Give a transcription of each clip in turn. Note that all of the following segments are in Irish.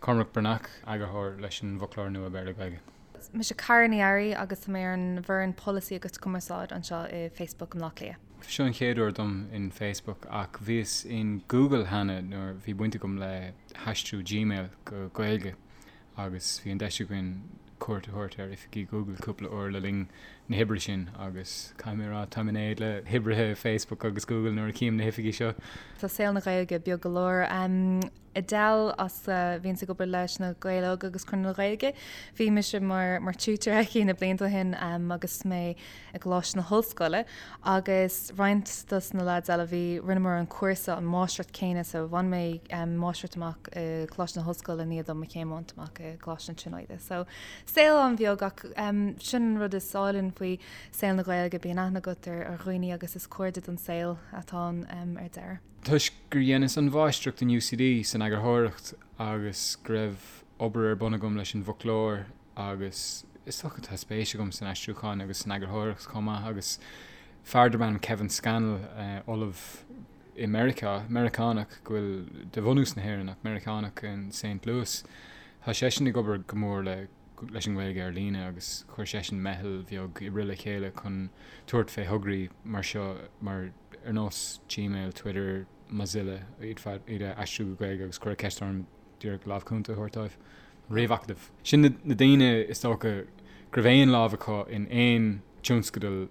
Cormac Breathnach, eagarthóir leis an bhFoclóir Nua Béarla-Gaeilge. Mise Cara Ní Fhearraigh agus tá mé ar an bhfoireann Polasaí agus Cumarsáid anseo i Facebook i mBleá Cliath. Seo an chéad uair dom in Facebook ach bhíos in Google cheana nuair bhí baint agam le haistriú Gmail go Gaeilge agus bhí an deis againn cuairt a thabhairt ar oifigí Google cúpla uair le linn na hoibre sin agus caithfidh mé a rá táim in éad le hoibrithe Facebook agus Google nuair a chím na hoifigí seo. Tá saol na Gaeilge beag go leor. Edel as a bhíonns ag obair leis na Gaeil Óga agus Conradh na Gaeilge. Bhí mise mar mar tutor aici na blianta ó shin agus mé i gColáiste na hOllscoile agus roinnt dos na lads eile bhí rinneamar an cúrsa an máistreacht céanna so bhain mé máistreacht amach i gColáiste na hOllscoile i ndiaidh dom mo chéim a bhaint amach i gColáiste na Tríonóide. So saol an-bheag ach sin an rud is álainn faoi saol na Gaeilge bíonn aithne agat ar ar dhaoine agus is cairde don saol atá ann ar deireadh. Toisc gur dheineas an mháistreacht in UCD san eagarthóireacht agus go raibh obair ar bun agam leis an bhfoclóir agus is dócha tá spéis agam san aistriúchán agus san eagarthóireacht chomh maith agus fear darb ainm Kevin Scannell, ollamh i Meiriceá, Meiriceánach go bhfuil de bhunús na hÉireann ach Meiriceánach in Saint Louis, tá seisean ag obair go mór le leis an nGaeilge ar líne agus chuir seisean meitheal bheag oibre le chéile chun tabhairt fé thograí mar seo mar ar nós Gmail, Twitter, Mozilla, iad iad a aistriú go Gaeilge agus cuireadh ceist orm díreach lámh cúnta a thabhairt dóibh. Ríomhacadamh. Sin na daoine is dócha go raibh aon lámh acu in aon tionscadal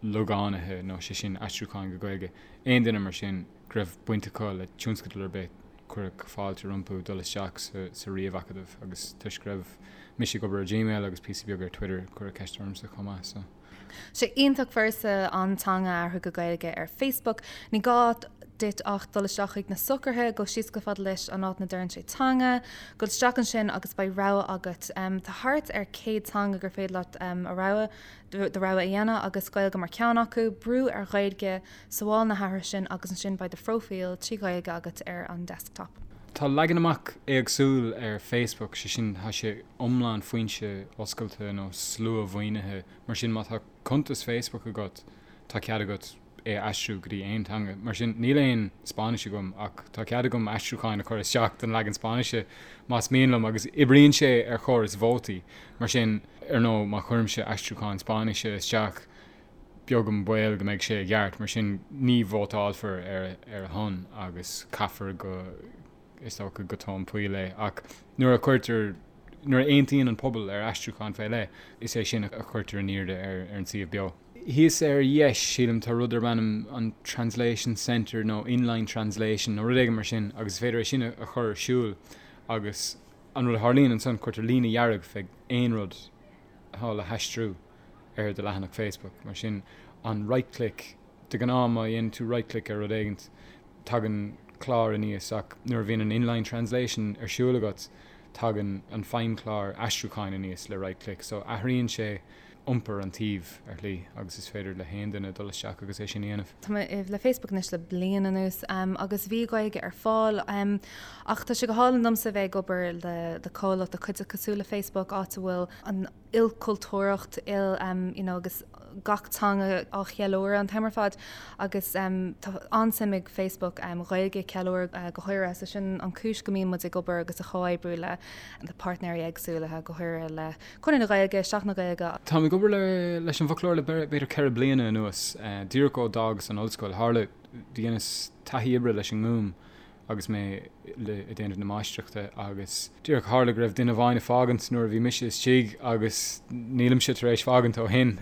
logánaithe nó sé sin aistriúcháin go Gaeilge, aon duine mar sin go raibh baint acu le tionscadal ar bith, cuireadh fáilte rompu dul isteach sa ríomhacadamh agus toisc go raibh mise ag obair ar Gmail agus píosa beag ar Twitter, cuireadh ceist ormsa chomh maith. So. Sé iontach furasta an teanga a athrú go Gaeilge ar Facebook. Ní gá duit ach dul isteach chuig na socruithe, gabh síos chomh fada leis an áit ina deireann sé teanga, gabh isteach ansin agus beidh rogha agat. Tá thart ar 100 teanga gur féidir leat a rogha, do rogha a dhéanamh agus Gaeilge mar cheann acu. Brú ar Ghaeilge, sabháil na hathruithe sin agus ansin beidh do phróifíl trí Ghaeilge agat ar an desktop. Tá leagan amach éagsúil ar Facebook, sé sin tá sé iomlán foinse oscailte nó slua-mhaoinithe, mar sin má tá cuntas Facebook agat tá cead agat é a aistriú go dtí aon teanga. Mar sin níl aon Spáinnis agam ach tá cead agam aistriúcháin a chur isteach don leagan Spáinnise más mian liom agus oibríonn sé ar chóras vótaí. Mar sin, ar ndóigh, má chuirimse aistriúchán Spáinnise isteach beag an baol go mbeidh sé i gceart, mar sin ní vótálfar ar a shon agus caithfear go, is dócha, go tóin poill é. Ach nuair a chuirtear, nuair a aontaíonn an pobal ar aistriúchán fé leith, is é sin a chuirtear in airde ar an suíomh beo. Thíos ar dheis, sílim, tá rud darb ainm an Translation Centre nó Inline Translation nó rud éigin mar sin agus is féidir é sin a chur ar siúl agus an rud a tharlaíonn ansan, cuirtear líne dhearg fé aon rud atá le haistriú ar do leathanach Facebook. Mar sin, an right click, de ghnáth má dhéanann tú right click ar rud éigint, tagann clár aníos ach nuair a bhíonn an inline translation ar siúl agat, tagann an feidhmchlár aistriúcháin aníos le right click. So athraíonn sé iompar an tsuímh ar shlí agus is féidir le haon duine dul isteach agus é sin a dhéanamh. Tá mé le Facebook anois le bliain anuas agus bhí Gaeilge ar fáil ach tá sé go hálainn domsa a bheith ag obair le comhlacht, le cuideachta cosúil le Facebook áit a bhfuil an ilchultúrthacht, il you know agus gach teanga á cheiliúradh an t-am ar fad agus tá an-suim ag Facebook Gaeilge a cheiliúradh go háirithe so sin an chúis go mbíonn muid ag obair agus ag comhoibriú le le páirtnéirí éagsúla go háirithe le Conradh na Gaeilge, Seachtain na Gaeilge. Táim ag obair le leis an bhfoclóir le b'fhéidir 4 bliana anuas, díreach ó d'fhágas an ollscoil. Tharla, dheineas taithí oibre leis an nGúm agus mé ag déanamh na máistreachta agus díreach tharla go raibh duine amháin ag fágaint nuair a bhí mise istigh agus nílimse tar éis fágaint ó shin.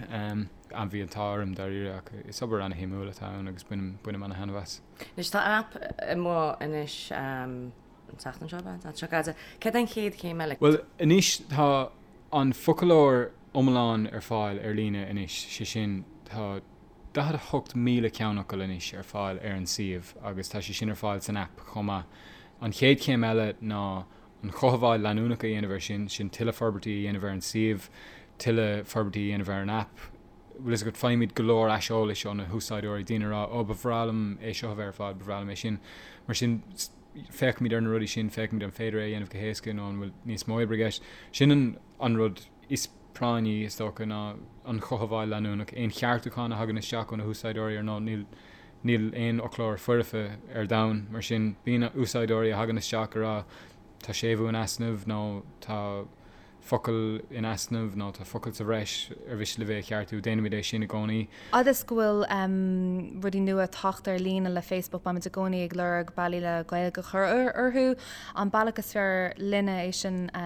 Bhí an t-ádh orm dáiríre ach is obair ana-shuimiúil atá ann agus bainim bainim ana-thaitneamh as. Anois tá aip amuigh anois an tseachtain seo, an tseachtain seo caite. Céard é an chéad chéim eile? Bhuel anois tá an foclóir iomlán ar fáil ar líne anois, sé sin tá 48,000 ceannfhocal anois ar fáil ar an suíomh agus tá sé sin ar fáil san aip chomh maith. An chéad chéim eile ná an chothabháil leanúnach a dhéanamh air sin, sin tuilleadh forbairtí a dhéanamh ar an suíomh, tuilleadh forbairtí a dhéanamh ar an aip. Bhfuil fhios agat, faighimid go leor aiseolais ó na húsáideoirí, daoine ag rá 'Ó, ba bhreá liom é seo a bheith ar fáil, ba bhreá liom é sin'. Mar sin, féachaimid ar na rudaí sin, féachaimid an féidir é a dhéanamh go héasca nó an bhfuil níos mó oibre i gceist. Sin an rud is práinní, is dócha, ná an chothabháil leanúnach, aon cheartúchán a thagann isteach ó na húsáideoirí, ar ndóigh, níl níl aon fhoclóir foirfe ar domhan, mar sin bíonn úsáideoirí a thagann isteach ag rá. tá séimhiú in easnamh nó tá focal in easnamh nó tá focal sa bhreis ar mhiste libh é a cheartú, déanaimid é sin i gcónaí. Fhad is go bhfuil rudaí nua ag teacht ar líne le Facebook, beimid i gcónaí ag lorg bealaí le Gaeilge a chur orthu. An bealach is fearr linne é sin a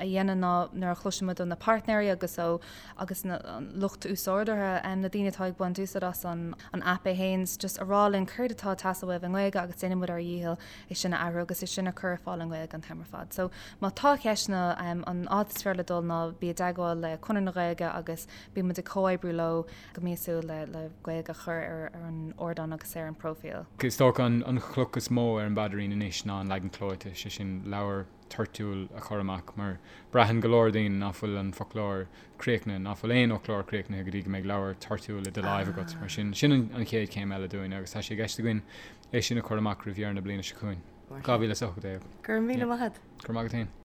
dhéanamh ná nuair a chloiseann muid ó na páirtnéirí agus ó agus na lucht úsáideoirí, na daoine atá ag baint úsáid as an aip é féin, just a rá linn céard atá ag teastáil uaibh i nGaeilge agus déanann muid ár dhícheall é sin a athrú agus é sin a chur ar fáil i nGaeilge an t-am ar fad. So má tá ceisteanna, an áit is fearr le dul ná bí i dteagmháil le Conradh na Gaeilge agus bíonn muid ag comhoibriú leo go míosúil le le Gaeilge a chur ar ar an ardán agus ar an bpróifíl. Is dócha an chloch is mó ar an bpaidrín anois ná an leagan clóite, sé sin leabhar toirtiúil a chur amach mar braitheann go leor daoine ná fuil an foclóir críochnaithe, ná fuil aon fhoclóir críochnaithe go dtí go mbeidh leabhar toirtiúil i do láimh agat. Mar sin, sin an chéad chéim eile dúinn agus tá sé i gceist againn é sin a chur amach roimh dheireadh na bliana seo chugainn, 2018. Go raibh míle maith agat. Go raibh maith agat féin.